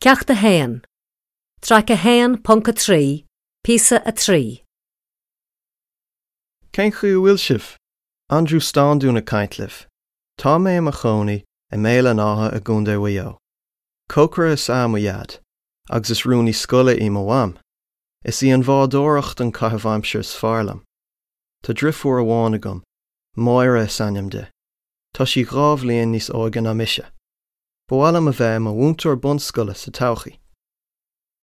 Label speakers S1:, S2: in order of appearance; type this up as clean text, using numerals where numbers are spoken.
S1: Ceacht 1, Traic 1.3, Píosa 3.
S2: Cén chaoi a bhfuil sibh? Aindriú Standún ag caint libh. Tá mé i mo chónaí i mBéal an Átha i gContae Mhaigh Eo. Cócaire is ea mo dhaid, agus is rúnaí scoile í mo mham. Is í an bhádóireacht an caitheamh aimsire is fearr liom. Tá driofúr amháin agam, Máire is ainm di. Tá sí 2 bhliain níos óige ná mise. Ba mhaith liom a bheith i mo mhúinteoir bunscoile sa todhchaí.